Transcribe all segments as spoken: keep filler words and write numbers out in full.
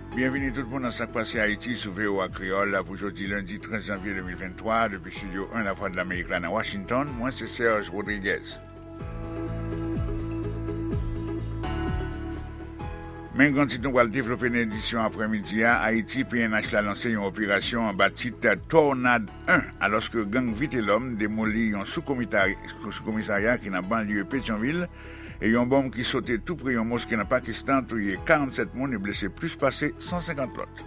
Byenvini tout moun nan Sa k Pase Ayiti sou V O A Kreyòl pou jodi lendi trant janvye de mil venntwa, depi Estidyo en Lavwadlamerik la nan Washington. Mwen se Serge Rodriguez. Men gran tit nou pral devlope nan edisyon aprèmidi a, Ayiti, P N H la lanse yon operasyon anba tit Tornad en, alòske gang Vitelòm demoli yon sou-komitari-, sou-komisarya ki nan banlye Petyonvil, e yon bonm ki sote tou pre yon moske nan Pakistan touye karannsèt moun e blese plis pase san senkant lòt.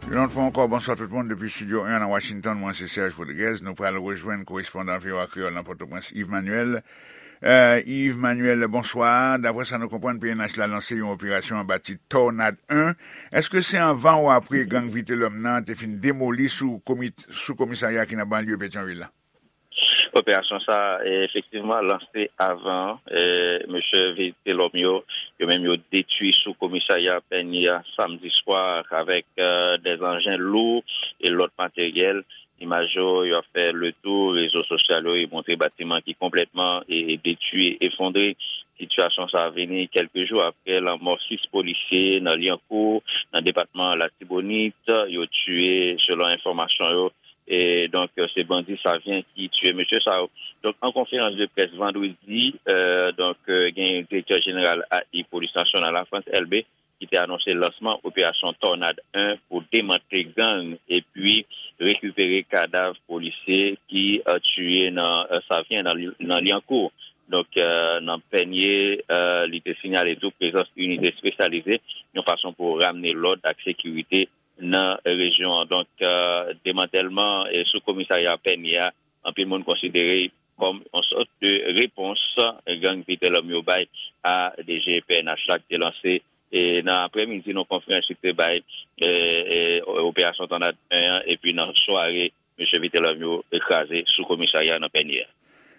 Yon lòt fwa ankò, bonswa tout moun depi Estidyo en nan Washington, mwen se Serge Rodriguez. Nou pral rejwenn korespondan V O A Kreyòl nan Pòtoprens, Yves Manuel. Euh, Yves Manuel, bonswa. Daprè sa nou konprann, P N H la lanse yon operasyon anba tit Tornad en. Èske se anvan ou apre gang Vitelòm nan te fin demoli sou komi-, sou komisarya ki nan banlye Petyonvil la? Operasyon sa, e, efektivman lanse avan, e, mesye Vitelòm yo, yo menm yo detwi sou komisarya Pènye a samdi swa avèk, e, dèz anjen lou e lòt materyèl. Imaj yo, yo ap fè le tou rezo sosyal yo, e montre batiman ki konplètman, e, detwi, efondre. Sitiyasyon sa vini kèlke jou apre lanmò sis polisye nan Lyankou, nan depatman Latibonit. Yo tiye, selon enfòmasyon yo, e donk, se bandi Savyen ki tiye mesye sa yo. Donk, an konferans de près vandredi, e, donk, e, gen direktè jeneral A I Polis Nasyonal la, Frantz Elbé, ki te anonse lansman operasyon Tònad en pou demantle gang epi rekipere kadav polisye ki, e, tiye nan, e, Savyen, nan, nan Lyankou. Donk, e, nan Pènye, e, li te sinyale tou prezans inite espesyalize, yon fason pou ramne lòd ak sekirite nan rejyon an. Donk, e, demantèlman, e, sou komisarya Pènye a, anpil moun konsidere kòm yon sòt de repons gang Vitelòm yo bay a D G P N H la ki te lanse, e, nan aprèmidi, nan konferans li te bay, e, e, operasyon Tònad en an, epi nan sware, mesye Vitelòm yo kraze sou komisarya nan Pènye a.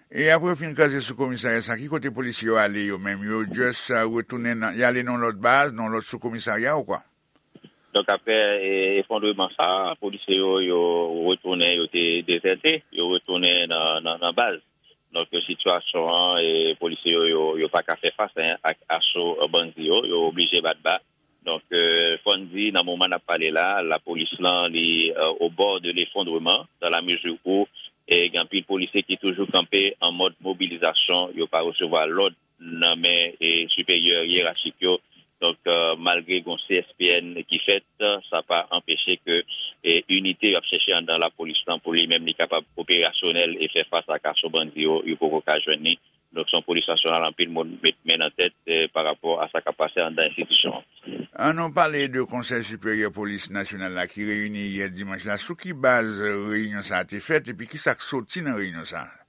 E apre yo fin kraze sou komisarya sa, ki kote polisye yo ale yo menm? Yo just, e, retounen nan, y ale nan lòt baz, nan lòt sou komisarya ou kwa? Donk, apre, e, efondreman sa, polisye yo, yo retounen, yo te dezète, yo retounen nan, nan, nan baz. Donk, sitiyasyon an, e, polisye yo, yo, yo pa ka fè fas, en, ak aso, e, bandi yo, yo oblije bat ba. Donk, e, fò n di, nan moman n ap pale la, lapolis lan, li, e, au bord de l'effondrement, dans la mesure où, e, gen anpil polisye ki toujou kanpe an mòd mobilizasyon, yo pa resevwa lòd nan men, e, siperyè yerachik yo. Donk, e, malgre gon C S P N ki fèt, sa pa anpeche ke, e, inite y ap chèche anndan lapolis lan pou li menm li kapab operasyonèl e fè fas ak aso bandi yo, yo poko ka jwenn li. Donk, se yon polis nasyonal anpil moun met men nan tèt, e, pa rapò a sa k ap pase anndan enstitisyon an. An nou pale de Konsèy Siperyè Polis Nasyonal la ki reyini yè dimanch la. Sou ki baz reyinyon sa a te fèt epi ki sa k soti nan reyinyon sa a?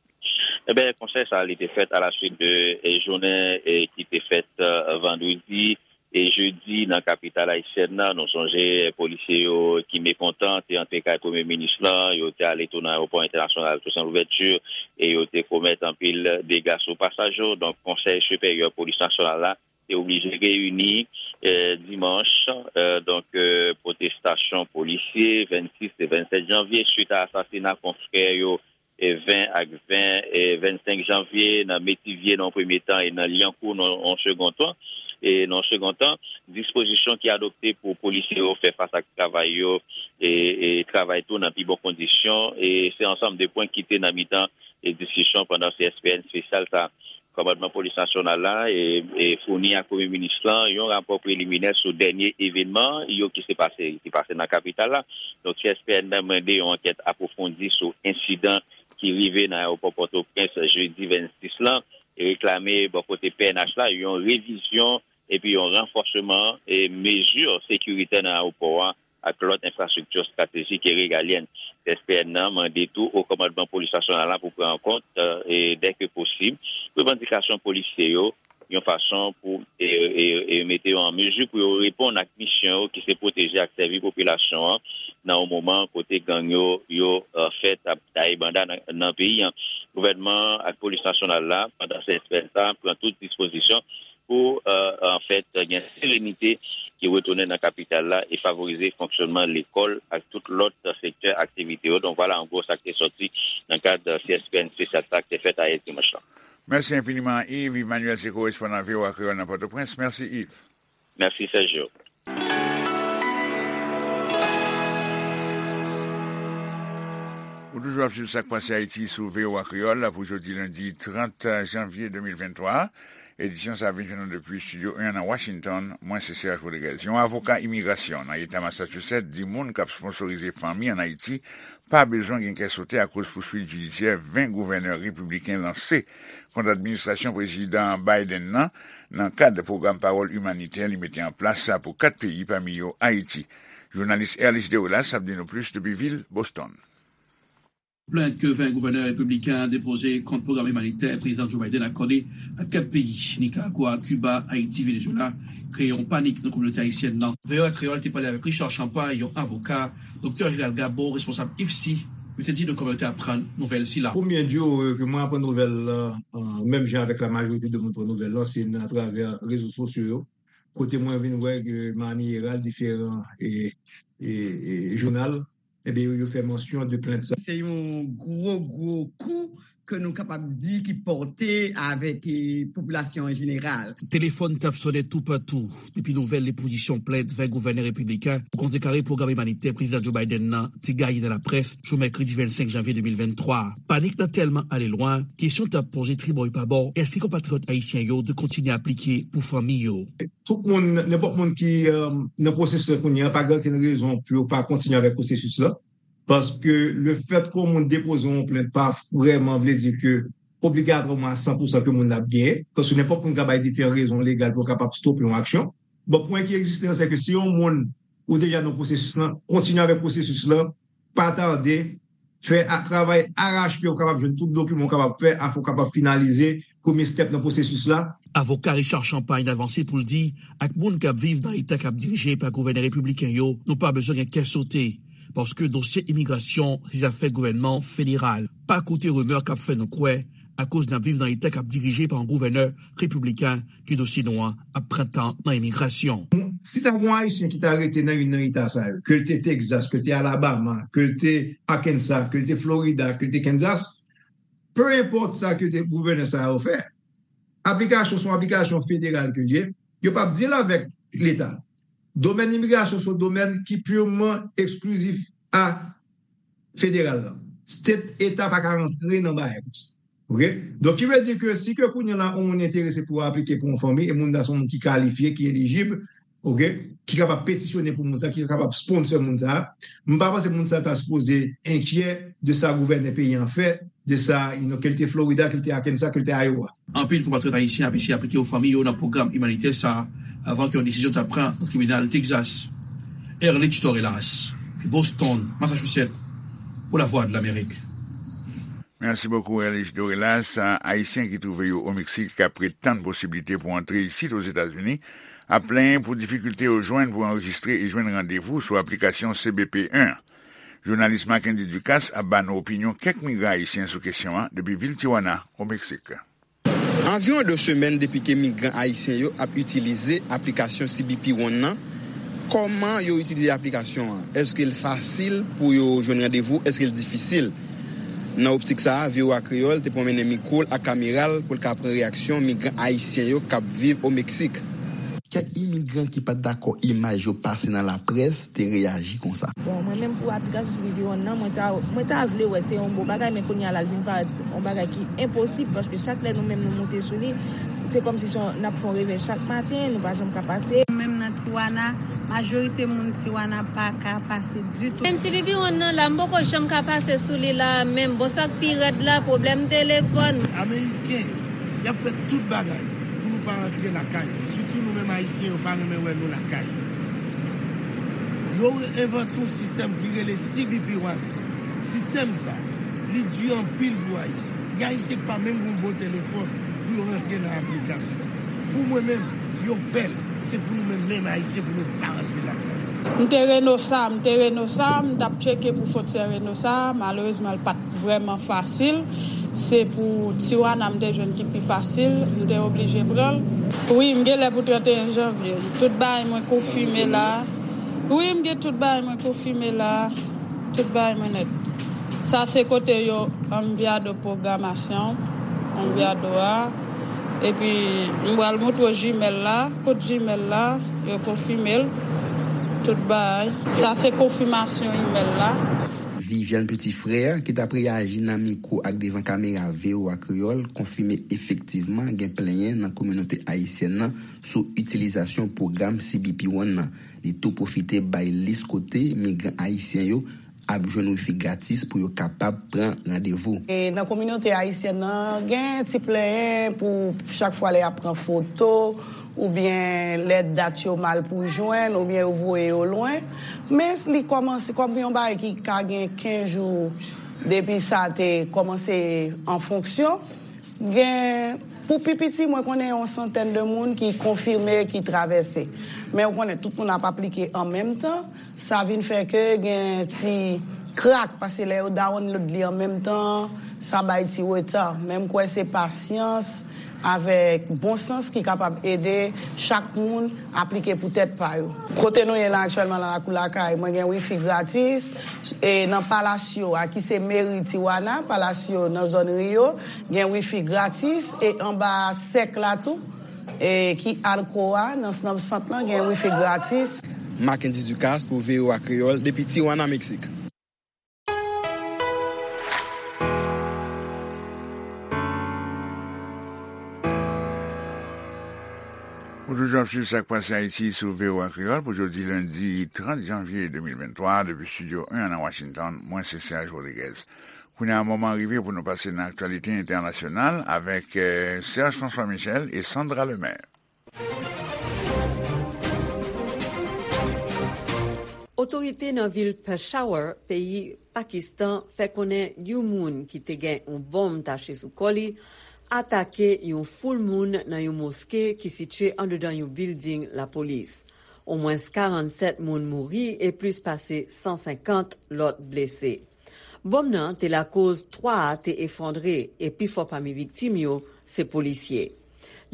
Eben, konsèy sa a, li te fèt a la suit de, e, jounen, e, ki te fèt, e, vandredi e jedi nan kapital ayisyèn nan. Nou sonje, e, polisye yo ki mekontan te antre kay premye minis lan, yo te ale tou nan ayewopò entènasyonal Toussaint Louverture e yo te komèt anpil dega sou pasaj yo. Donk, Konsèy Siperyè Polis Nasyonal la te oblije reyini, e, dimanch, e, donk, e, pwotestasyon polisye vennsis e vennsèt janvye, swit a asasina konfrè yo, e, ven ak ven, e, vennsenk janvye, nan Metivye nan yon premye tan e nan Lyankou nan yon segon tan. E nan yon segon tan, dispozisyon ki adopte pou polisye yo fè fas ak travay yo, e, e travay tou nan pi bon kondisyon. E se ansanm de pwen ki te nan mitan, e, diskisyon pandan C S P N espesyal sa. Kòmandman Polis Nasyonal la, e, e, founi ak Premye Minis lan yon rapò preliminè sou dènye evènman yo ki se pase, ki pase nan kapital la. Donk, C S P N nan mande yon ankèt apwofondi sou ensidan ki rive nan ayewopò Pòtoprens jedi vennsis lan, e reklame bò kote P N H la yon revizyon epi yon ranfòsman, e, mezi sekiritè nan ayewopò a ak lòt enfrastrikti estratejik e regalyèn. S P N nan mande tou Wo Kòmandman Polis Nasyonal la pou pran an kont, e, dèke posib, revandikasyon polisye yo, yon fason pou, e, e, e mete yo an mezi pou yo reponn ak misyon yo ki se pwoteje ak sèvi popilasyon an nan yon moman kote gang yo, yo, e, fèt ap taye banda nan, nan peyi an. Gouvènman ak Polis Nasyonal la, pandan se espè sa, pran tout dispozisyon pou, e, anfèt, gen serenite ki retounen nan kapital la e favorize fonksyonman lekòl ak tout lòt sektè aktivite yo. Donk, vwala, an gwo, sa k te sòti nan kad C S P N spesya sa k te fèt ayè dimanch lan. Mèsi enfiniman, Yves. Yves Manuel se korespondan V O A Kreyòl nan Pòtoprens. Mèsi, Yves. Mèsi, Sergio. Ou toujou ap swiv Sa k Pase Ayiti sou V O A Kreyòl pou jodi lendi trant janvye de mil venntwa. Edisyon sa a vin jwenn nou depi Estidyo en an nan Washington. Mwen se Serge Rodriguez. Yon avoka imigrasyon nan eta Massachusetts di moun k ap sponsorize fanmi ann Ayiti pa bezwen gen kè sote akoz pouswit jidisyè ven gouvènè repibliken lanse kont administrasyon Prezidan Biden nan, nan kad pwogram pawòl imanitè li mete an plas pou kat peyi, pami yo Ayiti. Jounalis Erlis Derolas ap di nou plis depi vil Boston. Plent ke ven gouvènè repibliken an depoze kont pwogram imanitè Prezidan Joe Biden akòde ak kat peyi, Nicaragua, Cuba, Ayiti, Venezuela, kreye yon panik nan kominote ayisyèn nan. V O A Kreyòl te pale avèk Richard Champagne, yon avoka, Doktè Gérald Gabo, responsab IFSI, yo te di nou kòman yo te aprann nouvèl sila. Premye jou, euh, ke mwen aprann nouvèl la, euh, menm jan avèk la majorite de moun pran nouvèl la, se nan atravè rezo sosyo yo, kote mwen vin wè ke Miami Herald, diferan e, e, e jounal, ebyen, yo, yo fè mansyon de plent sa. Se yon gwo, gwo kou ke nou kapab di ki pòte avèk, eh, popilasyon an jeneral. Telefòn t ap sonnen toupatou depi nouvèl depozisyon plent ven gouvènè repibliken pou kontrekare pwogram imanitè Prezidan Joe Biden nan te gaye nan laprès jou mèkredi vennsenk janvye de mil venntwa. Panik nan tèlman ale lwen, kesyon t ap poze tribò e pabò, èske konpatriyòt ayisyen yo dwe kontinye aplike pou fanmi yo? Tout moun, nenpòt moun ki, euh, nan pwosesis la kounye a, pa gen okenn rezon pou yo pa kontinye avèk pwosesis la. Paske lefètke yon moun depoze yon plent pa vrèman vle di ke obligatwaman a san pou san ke moun nan ap genyen. Paske nenpòt moun ka bay diferan rezon legal pou yo kapab stope yon aksyon. Bon, pwen ki egziste an, se ke si yon moun ou deja nan pwosesis lan, kontinye avèk pwosesis lan, pa tade, fè a, travay arache pye ou kapab jwenn tout dokiman ou kapab fè, afin ou kapab finalize premye step nan pwosesis la. Avoka Richard Champagne avanse pou l di, ak moun k ap viv nan eta k ap dirije pa gouvènè repibliken yo, nou pa bezwen gen kè sote, paske dosye imigrasyon se zafè gouvènman federal. Pa koute rimè k ap fè nou kwè, akoz n ap viv nan eta k ap dirije pa yon gouvènè repibliken, ke dosye nou an ap pran tan nan imigrasyon. Si ta gen yon Ayisyen ki ta rete nan youn nan eta sa yo, ke l te Texas, ke l te Alabama, ke l te Arkansas, ke l te Florida, ke l te Kansas, pe enpòt sa ke te gouvènè sa yo fè, aplikasyon se yon aplikasyon federal ke l ye, yo p ap deal avèk leta. Domèn imigrasyon se yon domèn ki pirman eksklizif a federal la. State, eta pa ka rantre nan bagay konsa. Oke? Donk, ki vle di ke si ke kounye a la, yon moun enterese pou aplike pou yon fanmi, e moun nan se yon moun ki kalifye, ki elijib, oke, ki kapab petisyone pou moun sa, ki kapab sponsor moun sa, m pa panse moun sa ta sipoze enkyè de sa gouvènè peyi an fè, de sa, you know, ke l te Florida, ke l te Arkansas, ke l te Iowa. Anpil konpatriyòt ayisyen ap eseye aplike yo fanmi yo nan pwogram imanitè sa a, avan ke yon desizyon ta pran nan tribinal Texas. Erlich Torelas, Boston, Massachusetts, pou Lavwadlamerik. Mèsi bokou, Erlich Torelas. Ayisyen ki twouve yo o Meksik k ap ret tann posiblite pou antre isit Ozetazini ap plenyen pou difikilte yo jwenn pou anrejistre e jwenn randevou sou aplikasyon C B P en. Jounalis Mackendy Ducasse ap ba nou opinyon kèk migran ayisyen sou kesyon an depi vil Tijuana, o Meksik. Anviwon de semèn depi ke migran ayisyen yo ap itilize aplikasyon C B P One nan. Kòman yo itilize aplikasyon an? Èske l fasil pou yo jwenn randevou? Èske l difisil? Nan optik sa a, V O A Kreyòl te pwomennen mikwo l ak kamera l pou l ka pran reyaksyon migran ayisyen yo k ap viv o Meksik. Kèk imigran ki pa t dakò imaj yo pase nan laprès te reyaji konsa. Bon, mwen menm pou aplikasyon C B P One nan, mwen ta, mwen ta vle wè se yon bon bagay, men kounye a la, l vin parèt yon bagay ki enposib, paske chak lè nou menm nou moute sou li, se kòmsi se yon, n ap fè yon revè chak maten, nou pa janm ka pase. Menm nan Tijuana, majorite moun Tijuana pa ka pase ditou. Menm C B P One nan la, m poko janm ka pase sou li la, menm bon, sa k pi rèd la, pwoblèm telefòn. Ameriken, y ap fè tout bagay pou nou pa rantre lakay. Sitou nou menm Ayisyen, yo pa renmen wè nou lakay. Yo envante yon sistèm ki rele C B P One. Sistèm sa, li di anpil pou Ayisyen. Gen Ayisyen ki pa menm gen yon bon telefòn pou yo rantre nan aplikasyon. Pou mwen menm, yo fè l. Se pou nou menm, menm Ayisyen, pou nou pa rantre lakay. M te Reynosa, m te Reynosa, m t ap tcheke pou fwontyè Reynosa. Malerezman, l pa t vrèman fasil. Se pou Tijuana m te jwenn ki pi fasil, m te oblije pran l. Wi, m gen lè pou trannteyen janvye. Tout bagay mwen konfime la. Wi, m gen tout bagay mwen konfime la. Tout bagay mwen nèt. Sa se kote yo anviyado pwogramasyon, anviyado a. Epi, m pral montre w jimèl la. Kot jimèl la, yo konfime l. Tout bagay. Sa se konfimasyon imèl la. Viviane Petit-Frère, ki t ap reyaji nan mikwo ak devan kamera V O A Kreyòl, konfime efektivman gen plenyen nan kominote ayisyèn nan sou itilizasyon pwogram C B P One nan. Li tou pwofite bay lis kote migran ayisyen yo ap jwenn wifi gratis pou yo kapab pran randevou. E nan kominote ayisyèn nan, gen ti plenyen pou chak fwa lè y ap pran foto, oubyen lè dat yo mal pou jwenn, oubyen yo voye yo lwen. Men li kòmanse kòm yon bagay ki ka gen kenz jou depi sa te kòmanse an fonksyon. Gen, pou pi piti, mwen konnen yon santèn de moun ki konfime, ki travèse. Men ou konnen, tout moun ap aplike an menm tan. Sa vin fè ke gen ti krak, paske lè yo download li an menm tan, sa bay ti reta. Men m kwè se pasyans avèk bon sans ki kapab ede chak moun aplike pou tèt pa yo. Kote nou ye la aktyèlman, nan lakou lakay, mwen gen wifi gratis. E nan Palacio a, ki se meri Tijuana, Palacio nan zòn Rio, gen wifi gratis. E anba sèk la tou, e ki Alcoa, nan, nan sant lan, gen wifi gratis. Mackendy Ducasse pou V O A Kreyòl, depi Tijuana, Meksik. Ou toujou ap swiv Sa k Pase Ayiti sou V O A Kreyòl pou jodi lendi trant janvye de mil venntwa, depi Estidyo en nan Washington. Mwen se Serge Rodriguez. Kounye a, moman an rive pou nou pase nan aktyalite entènasyonal avèk eh, Serge François Michel e Sandra Lemaire. Otorite nan vil Peshawar, peyi Pakistan, fè konnen yon moun ki te gen yon bonm tache sou kò li atake yon foul moun nan yon moske ki sitiye andedan yon bilding lapolis. Omwens karannsèt moun mouri e plis pase san senkant lòt blese. Bonm nan te lakoz twa a te efondre e pifò pami viktim yo se polisye.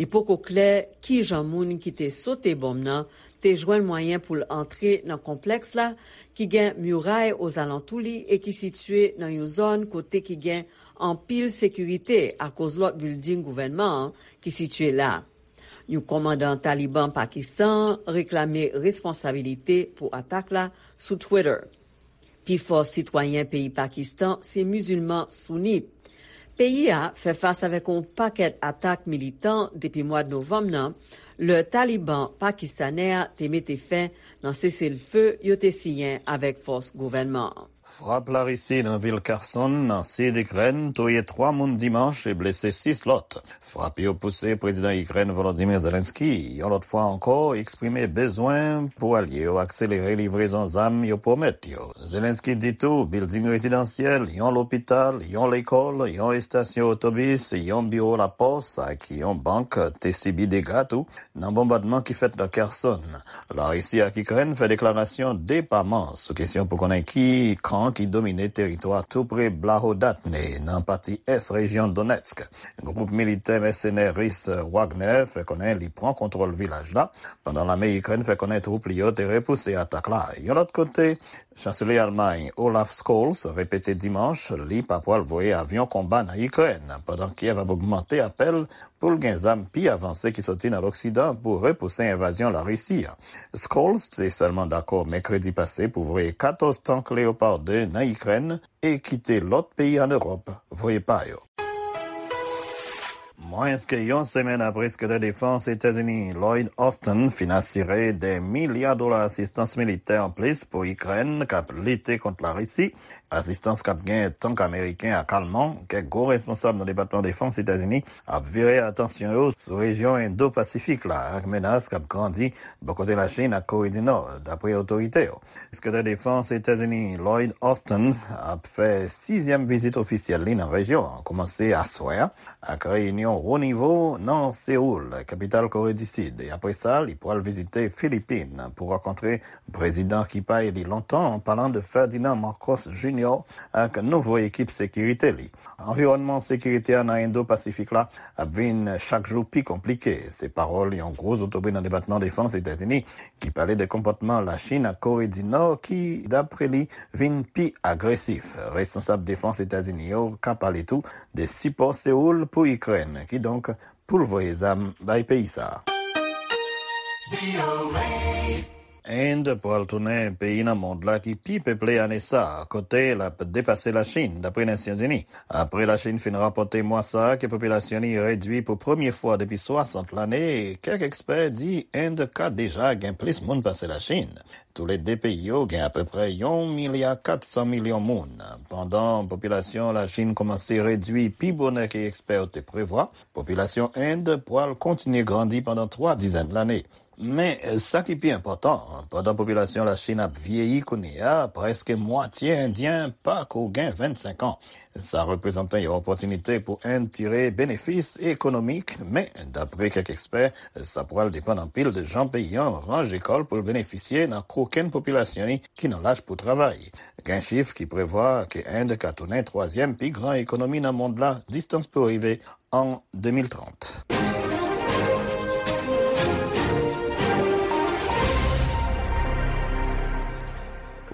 Li poko klè kijan moun ki te sote bonm nan te jwenn mwayen pou l antre nan konplèks la ki gen miray ozalantou li e ki sitiye nan yon zòn kote ki gen anpil sekirite akoz lòt bilding gouvènman an ki sitiye la. Yon kòmandan Taliban Pakistan reklame responsabilite pou atak la sou Twitter. Pifò sitwayen peyi Pakistan se mizilman sounit. Peyi a fè fas avèk yon pakèt atak militan depi mwad novanm nan, lè Taliban pakistanè a te mete fen nan seselfe yo te siyen avèk fòs gouvènman an. Frap Larisi nan vil Kherson, nan sid Ikrèn, touye twa moun dimanch e blese sis lòt. Frap yo pouse Prezidan Ikrèn Volodymyr Zelensky, yon lòt fwa ankò, eksprime bezwen pou alye yo akselere livrezon zam yo pwomèt yo. Zelensky di tou, bilding rezidansyèl, yon lopital, yon lekòl, yon estasyon otobis, yon biwo lapòs ak yon bank te sibi dega tou nan bonbadman ki fèt nan Kherson. Larisi ak Ikrèn fè deklarasyon depaman sou kesyon pou konnen ki kan ki domine teritwa tou pre Blahodatne, nan pati ès rejyon Donetsk. Gwoup militè mèsenè ris Wagner fè konnen li pran kontwòl vilaj la, pandan lame Ikrèn fè konnen twoup li yo te repouse atak la. Yon lòt kote, Chanselye Almay Olaf Scholz repete dimanch li pa pwal voye avyon konba nan Ikrèn, pandan Kyèv ap ogmante apèl pou l gen zam pi avanse ki soti nan Loksidan pou repouse envazyon Larisi a. Scholz te sèlman dakò mèkredi pase pou voye katòz tank Leopard de nan Ikrèn e kite lòt peyi ann Ewòp voye pa yo. Mwens ke yon semèn apre Sekretè Defans Etazini Lloyd Austin fin asire de milya dola asistans militè anplis pou Ikrèn k ap lite kont Larisi, asistans k ap gen tank ameriken ak alman, kèk gwo responsab nan Depatman Defans Etazini ap vire atansyon yo sou rejyon Endo-Pasifik la ak menas k ap grandi bò kote Lachin ak Kore di Nò, dapre otorite yo. Sekretè Defans Etazini Lloyd Austin ap fè sizyèm vizit ofisyèl li nan rejyon an, kòmanse aswè a ak reyinyon wo nivo nan Seoul, kapital Kore di Sid, e apre sa, li pral vizite Filipin pou rankontre prezidan ki pa eli lontan, an palan de Ferdinand Marcos Junior ak nouvo ekip sekirite li. Anviwònman sekirite a nan Endo-Pasifik la ap vin chak jou pi konplike, se pawòl yon gwo zotobre nan Depatman Defans Etazini ki pale de konpòtman Lachin ak Kore di Nò ki, dapre li, vin pi agresif. Responsab defans Etazini yo ka pale tou de sipò Seoul pou Ikrèn, kidonk pou l voye zam bay peyi sa a. End pral tounen peyi nan mond la ki pi peple ane sa a, kote l ap depase Lachin, dapre Nasyonzini. Apre Lachin fin rapòte mwa sa a ke popilasyon li redui pou premye fwa depi swasant lane, kèk ekspè di End ka deja gen plis moun pase Lachin. Toulede peyi yo gen apeprè yon milya kat san milyon moun. Pandan popilasyon Lachin kòmanse redui pi bonè ke ekspè yo te prevwa, popilasyon End pral kontinye grandi pandan twa dizèn lane. Men, sa ki pi enpòtan, pandan popilasyon Lachin ap vyeyi kounye a, prèske mwatye Endyen pa ko gen vennsenk an. Sa reprezante yon opòtinite pou End tire benefis ekonomik, men, dapre kèk ekspè, sa pral depann anpil de jan peyi an ranje kò l pou l benefisye nan kokenn popilasyon li ki nan laj pou travay. Gen chif ki prevwa ke End ka tounen twazyèm pi gran ekonomi nan mond la, distans pou rive an de mil trant.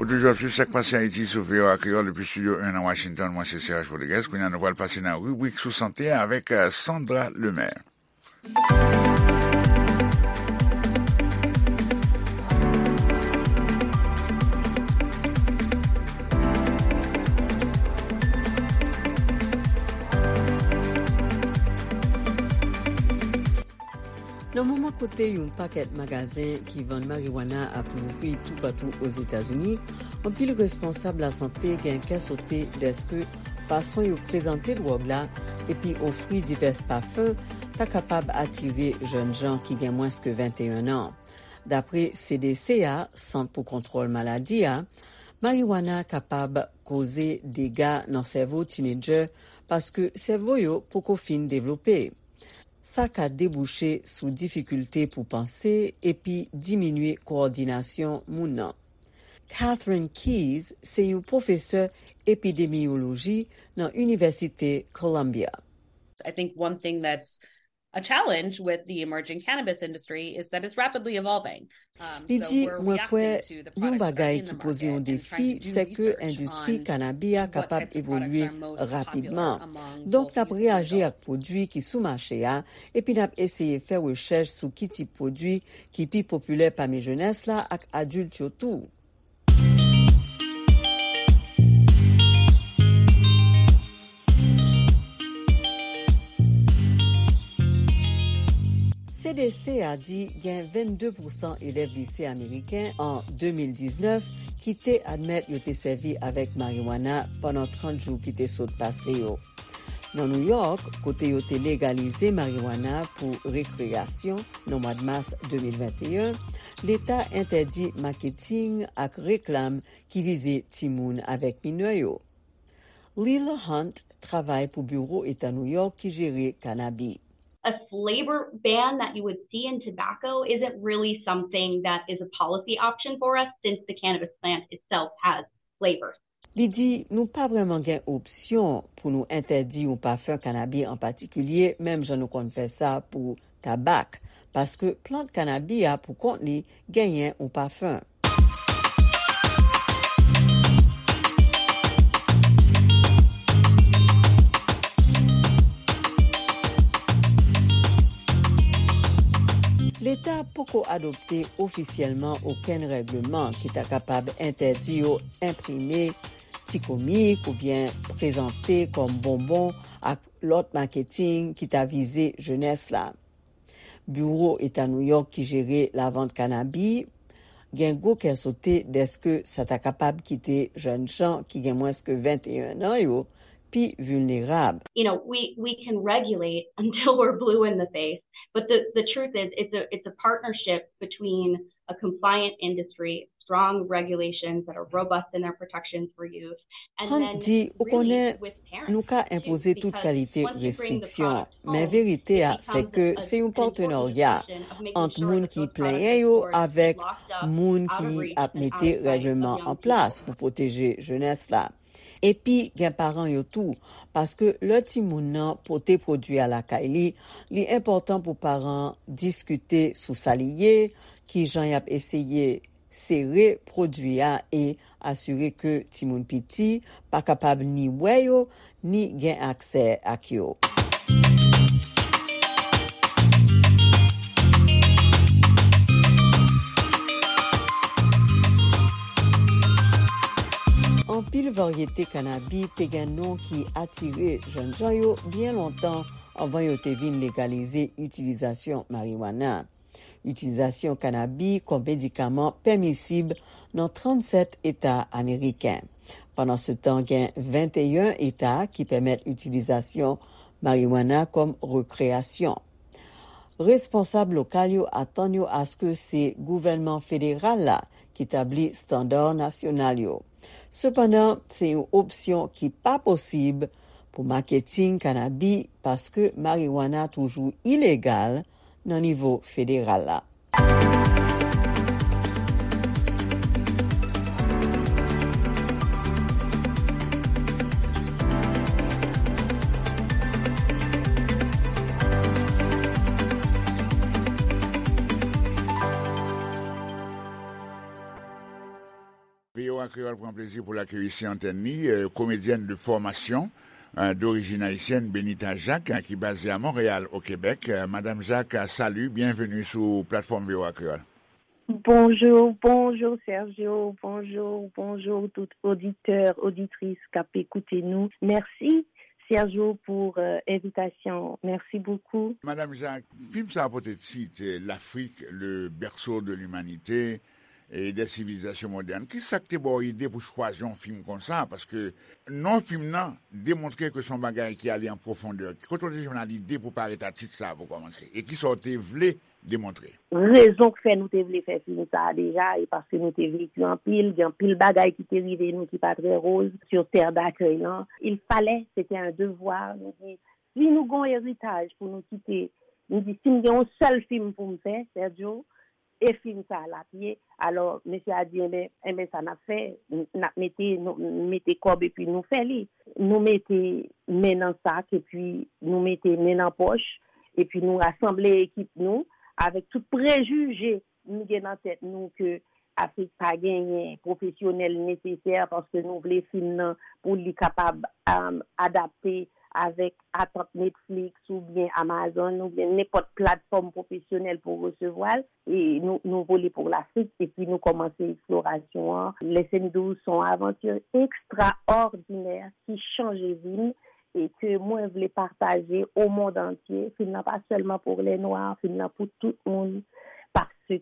Ou toujou ap swiv Sa k Pase Ayiti sou V O A Kreyòl depi Estidyo en nan Washington. Mwen se Serge Rodriguez. Kounye a, nou pral pase nan ribrik sou sante a avèk, eh, Sandra Lemaire. Nan moman kote yon pakèt magazen ki vann mariwana ap louvri toupatou Ozetazini, anpil responsab lasante gen kè sote dèske fason yo prezante dwòg la epi ofri divès pafen ta kapab atire jèn jan ki gen mwens ke venteyen an. Dapre C D C a, Sant pou Kontwòl Maladi a, mariwana kapab koze dega nan sèvo tinedjè paske sèvo yo poko fin devlope. Sa ka debouche sou difikilte pou panse epi diminye kowòdinasyon moun nan. Catherine Keyes se yon pwofesè epidemiyoloji nan Inivèsite Columbia. I think one thing that's a challenge with the emerging cannabis industry is that it's rapidly evolving. Um, Li di, mwen kwè yon bagay ki poze yon defi, se ke endistri kanabi a kapab evolye rapidman. Donk, n ap reyaji ak pwodui ki sou mache a, epi n ap eseye fè rechèch sou ki tip pwodui ki pi popilè pami jenès la ak adilt yo tou. C D C a di gen vennde pousan elèv lise ameriken an de mil diznèf ki te admèt yo te sèvi avèk mariwana pandan trant jou ki te sot pase yo. Nan New York, kote yo te legalize mariwana pou rekreyasyon nan mwa mas de mil venteyen, leta entèdi maketing ak reklam ki vize timoun avèk minè yo. Lila Hunt travay pou biwo eta New York ki jere kanabi. A flavor ban that you would see in tobacco isn't really something that is a policy option for us since the cannabis plant itself has flavors. Li di, nou pa vrèman gen opsyon pou nou entèdi yon pafen kanabi an patikilye, menm jan nou konn fè sa pou tabak, paske plant kanabi a pou kont li genyen yon pafen. Leta poko adopte ofisyèlman okenn règleman ki ta kapab entèdi yo enprime ti komik oubyen prezante kòm bonbon ak lòt maketing ki ta vize jenès la. Biwo Eta Nouyòk ki jere lavant kanabi gen gwo kè sote dèske sa ta kapab kite jèn jan ki gen mwens ke venteyen an yo pi vilnerab. You know, we, we can regulate until we're blue in the face, but the, the truth is it's a, it's a partnership between a compliant industry, strong regulations that are robust in their protections for youth, and Hunt then di, ou really konnen, with parents nou ka too, enpoze tout because kalite once you bring the restriksyon, product men home, verite it a, se becomes ke a, se yon an important partenarya discussion of making ant sure moun that ki those plenyen products yo are avèk locked up moun and out of ki reach ap and out mete of sight of règleman young an plas people. Pou pwoteje jenès la. Epi gen paran yo tou, paske lè timoun nan pote pwodui a lakay li, li enpòtan pou paran diskite sou sa li ye, kijan y ap eseye sere pwodui a e asire ke timoun piti pa kapab ni wè yo, ni gen aksè ak yo. Anpil varyete kannabi te gen non ki atire jènjan yo byen lontan anvan yo te vin legalize itilizasyon mariwana. Itilizasyon kannabi kòm medikaman pèmisib nan trannsèt eta ameriken. Pandansetan, gen venteyen eta ki pèmèt itilizasyon mariwana kòm rekreyasyon. Responsab lokal yo atann yo aske se gouvènman federal la ki tabli estanda nasyonal yo. Sepandan, se yon opsyon ki pa posib pou maketing kannabi paske mariwana toujou ilegal nan nivo federal la. V O A Kreyòl pran plezi pou l akeyi sou antèn li, euh, komedyèn de fòmasyon, euh, d'origine haïtienne, Benita Jacques, euh, ki baze a Monreyal, o Kebèk. Euh, Madam Jacques, euh, salut, bienvenue sou platfòm V O A Kreyòl. Bonjou, bonjou Sergio, bonjou, bonjou tout oditè, oditris k ap ekoute nou. Mèsi Sergio pou, euh, envitasyon. Mèsi bokou. Madam Jacques, fim sa a pote tit, euh, L'Afrique, le berceau de l'humanité et des civilisations modernes. Kisa k te ba w ide pou chwazi yon fim konsa? Paske non fim nan demontre ke se yon bagay ki ale an pwofondè. Kote w te jwenn lide pou parèt a tit sa a pou kòmanse? E kisa w te vle demontre? Rezon k fè nou te vle fè fim sa a deja, e paske nou te veki anpil, gen anpil bagay ki te rive nou ki pa trè roz sur terre d'accueil lan. Il fallait, c'était un devoir, nou di, si nou gon eritaj pou nou kite, nou di, si m gen yon sèl fim pou m fè, Sergio, e fim sa a l ap ye. Alò, mesye a di, enben, enben sa n ap fè, n ap mete, nou mete kòb epi nou fè li. Nou mete men nan sak epi nou mete men nan pòch, epi nou rasanble ekip nou avèk tout prejije nou gen nan tèt nou ke Afrik pa genyen pwofesyonèl nesesè, paske nou vle fim nan pou li kapab, um, adapte avèk atant Netflix oubyen Amazon oubyen nenpòt platfòm pwofesyonèl pou resevwa l. E nou, nou vole pou Lafrik, epi nou kòmanse eksplorasyon an. Listen to, se yon avanti ekstraòdinè ki chanje vi m e ke mwen vle pataje o mond antye. Fim nan pa sèlman pou lè nwa, fim nan pou tout moun, paske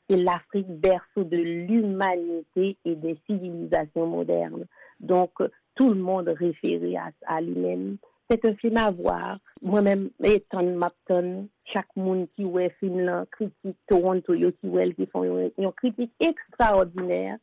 c'est l'Afrique, berceau de l'humanité et des civilisations modernes. Donc, tout le monde réfère à, à lui-même. C'est un film à voir. Mwen menm, e tann m ap tann chak moun ki wè fim nan, kritik Toronto yo ki wè l, ki fè yon, yon kritik ekstraòdinè,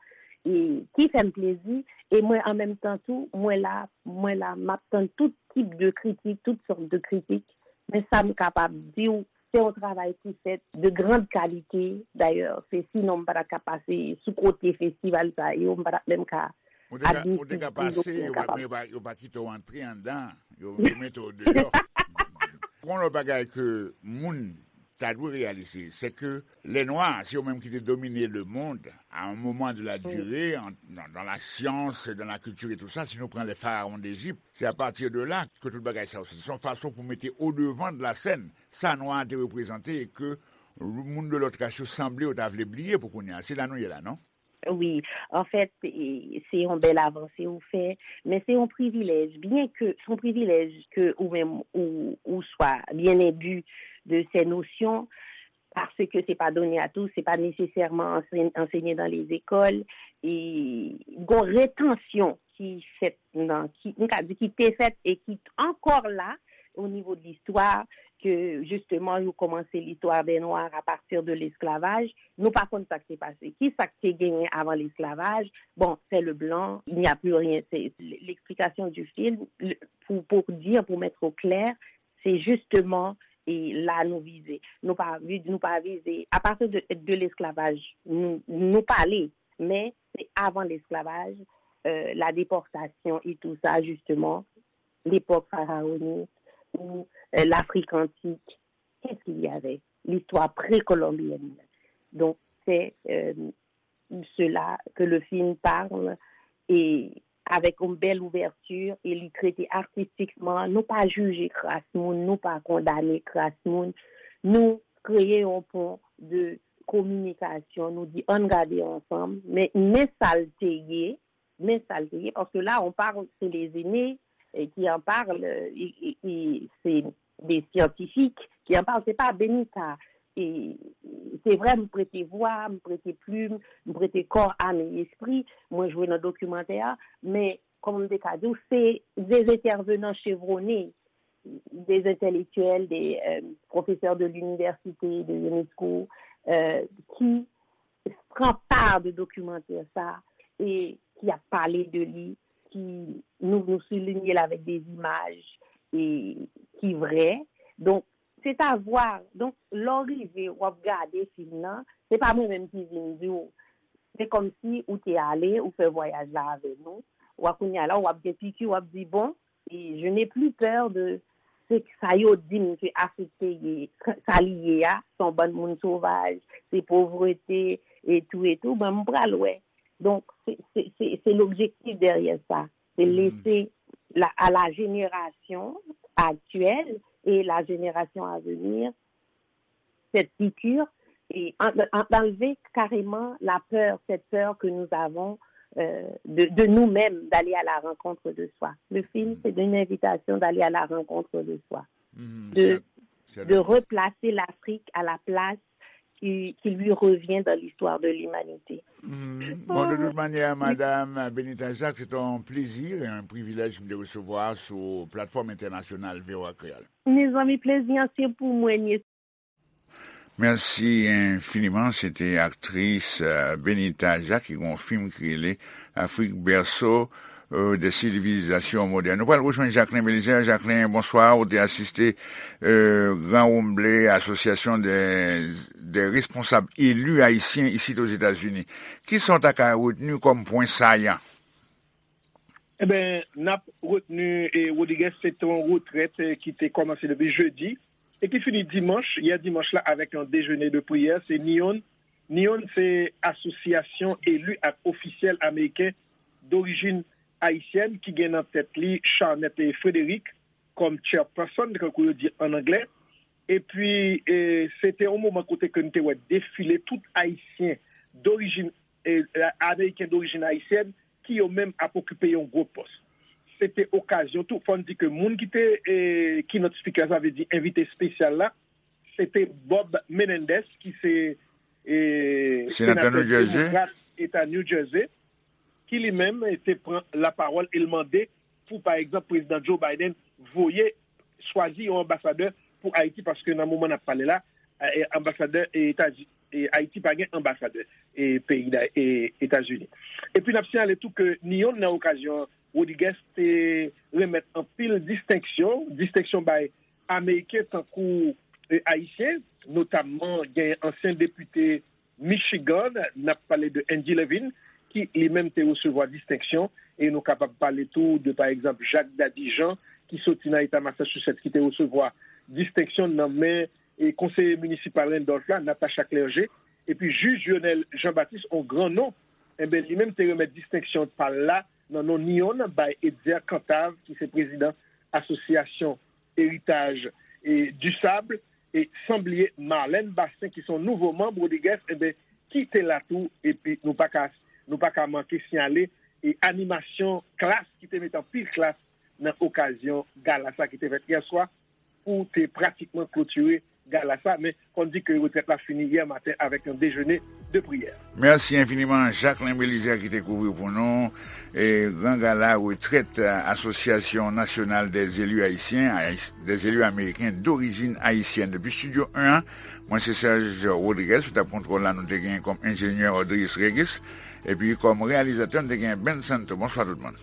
e ki fè m plezi. E mwen, an menm tan tou, mwen la, mwen la, m ap tann tout tip de kritik, tout sòt de kritik. Men sa m kapab di w, se yon travay ki fèt de grande qualité. Dayè, se sinon m pa t ap ka pase sou kote festival sa yo, m pa t ap menm ka Ou te ka, ou te ka pase, yo pa, yo pa, yo pa kite w antre anndan, yo, yo mete w deyò. Yon lòt bagay ke moun ta dwe reyalize, se ke lè nwa, se yo menm ki te domine le monde à un moment de la durée, en, dans, dans la science, dans la culture et tout ça, si nou pran les pharaons d'Égypte, c'est à partir de là que tout bagay sa yo soti. Se yon fason pou mete au devant de la scène sa nwa a te reprezante e ke moun de lòt ras yo sanble yo ta vle bliye pou kounye a. Se la nou ye la, non? Wi, anfèt, e, se yon bèl avanse ou fè, men se yon privilèj, byen ke, se yon privilèj ke ou menm ou, ou swa byen enbi de ces notions, paske se pa done à tous, se pa nesesèman anse-, ansenye dans les écoles, e gon retansyon ki fèt nan, ki, m ka di ki te fèt e ki ankò la, au niveau de l'histoire, que justement, ils ont commencé l'histoire des Noirs à partir de l'esclavage. Nous, par contre, ça qui s'est passé. Qui ça qui a gagné avant l'esclavage? Bon, c'est le blanc, il n'y a plus rien. C'est l'explication du film, pour, pour dire, pour mettre au clair, c'est justement et là nous viser. Nous pas nous pas viser. À partir de, de l'esclavage, nous, nous parler, mais c'est avant l'esclavage, euh, la déportation et tout ça, justement, l'époque pharaonique ou euh, l'Afrique antique. Qu'est-ce qu'il y avait? L'histoire précolombienne. Donc, c'est euh, cela que le film parle et avec une belle ouverture et li trete artistikman, nou pa jije kras moun, nou pa kondane kras moun, nou kreye yon pon de kominikasyon, nou di ann gade ansanm, men men sa l te ye, men sa l te ye, paske la on parle, c'est les aînés eh, qui en parlent, eh, eh, eh, c'est des scientifiques qui en parlent, c'est pas Benita. E se vre, m prete vwa, m prete plim, m prete kò, am e espri, mwen jwe nan dokimantè a, men, kòman m te ka di w, se des intervenants chevronnés, des intellectuels, des euh, professeurs de l'université, de l'UNESCO, euh, qui pran pa de dokimantè sa e ki ap pale de li, ki nou nou soulinye l avèk de imaj e ki vrè. Donk, se ta vwa. Donk, lè w rive, w ap gade fim nan, se pa mwen menm ki vin di w. Se kòmsi ou te ale, ou fè vwayaj la avè nou. W a kounye a la, w ap gen piki, w ap di, bon, e je n'ai plus peur de se sa yo di m ke Afrik te ye, sa li ye a, se yon bann moun sovaj, se povrete, e tou, e tou, mwen, m pral wè. Donk, se, se, se, se lobjektif dèyè sa. Se lese la, à la génération actuelle et la génération à venir cette piqûre et en- en- enlever carrément la peur, cette peur que nous avons euh, de, de nous-mêmes, d'aller à la rencontre de soi. Le film, c'est une invitation d'aller à la rencontre de soi, de, de replacer l'Afrique à la place qui, qui lui revient dans l'histoire de l'humanité. Bon, de tout manyè, Madam Benita Jacques, se te yon plezi, yon privilèj m te resevwa sou platfòm entènasyonal V O A Kreyòl. Mezanmi, plezi an se pou mwen, Mèsi enfiniman. Se te aktris Benita Jacques ki gen yon fim ki rele Afrik, berceau des civilisations modernes. Nou pral rejwenn Jacquelin Belizaire. Jacquelin, bonswa. Ou te asiste Gran Wonmble, Asosyasyon de, de responsab eli ayisyen isit Ozetazini. Kisa w ta ka retni kòm pwen sayan? Eben, n ap retni Rodriguez, se te yon retrèt ki te kòmanse depi jedi e ki fini dimanch, yè dimanch la, avèk yon dejene de priyè. Se NEON. NEON se Asosyasyon Eli ak Ofisyèl Ameriken Dorijin Ayisyèn ki gen nan tèt li Charnette Frederick kòm chairperson, tankou yo di an anglè. Epi, se te yon moman kote ke n te wè defile tout Ayisyen dorijin, Ameriken dorijin ayisyèn ki yo menm ap okipe yon gwo pòs. Se te okazyon tou, fò n di ke moun ki te keynote speaker, sa vle di envite espesyal la, se te Bob Menendez ki se senatè demokrat eta New Jersey, ki li menm te pran lapawòl e l mande pou, pa egzanp, Prezidan Joe Biden voye, chwazi yon anbasadè pou Ayiti, paske nan moman n ap pale la, anbasadè Etazini, Ayiti pa gen anbasadè peyi Etazini. Epi n ap siyale tou ke NEON nan okazyon an, Rodriguez te renmèt anpil distenksyon, distenksyon bay Ameriken tankou Ayisyen, notamman gen ansyen depite Michigan, n ap pale de Andy Levin, ki li menm te resevwa distenksyon, e nou kapab pale tou de, pa egzanp, Jacques Daddy Jean, ki soti nan eta Massachusetts, ki te resevwa distenksyon nan men konseye minisipal Randolph la, Natasha Clergé, epi jij Lionel Jean Baptiste, yon gran non, enben, li menm te renmèt distenksyon pa l la nan non NEON bay Etzer Cantave, ki se prezidan Asosyasyon Eritaj du Sable, e san bliye Marlène Bastien ki se yon nouvo manm Rodriguez, enben, ki te la tou, epi nou pa ka, nou pa ka manke siyale e animasyon klas ki te met anpil klas nan okazyon gala sa ki te fèt yè swa pou te pratikman klotire gala sa, men fò n di ke retrèt la fini yè maten avèk yon dejene de priyè. Mèsi enfiniman, Jacquelin Belizaire, ki te kouvri pou nou e gran gala retrèt Asosyasyon Nasyonal dè Zeli Ayisyen, Ayis- dè Zeli Ameriken Dorijin Ayisyèn. Depi Estidyo en an, mwen se Serge Rodriguez, sou tab kontwòl la, nou te genyen kòm enjenyè Audrius Régis, epi kòm reyalizatè, nou te genyen Ben Santo. Bonswa tout moun.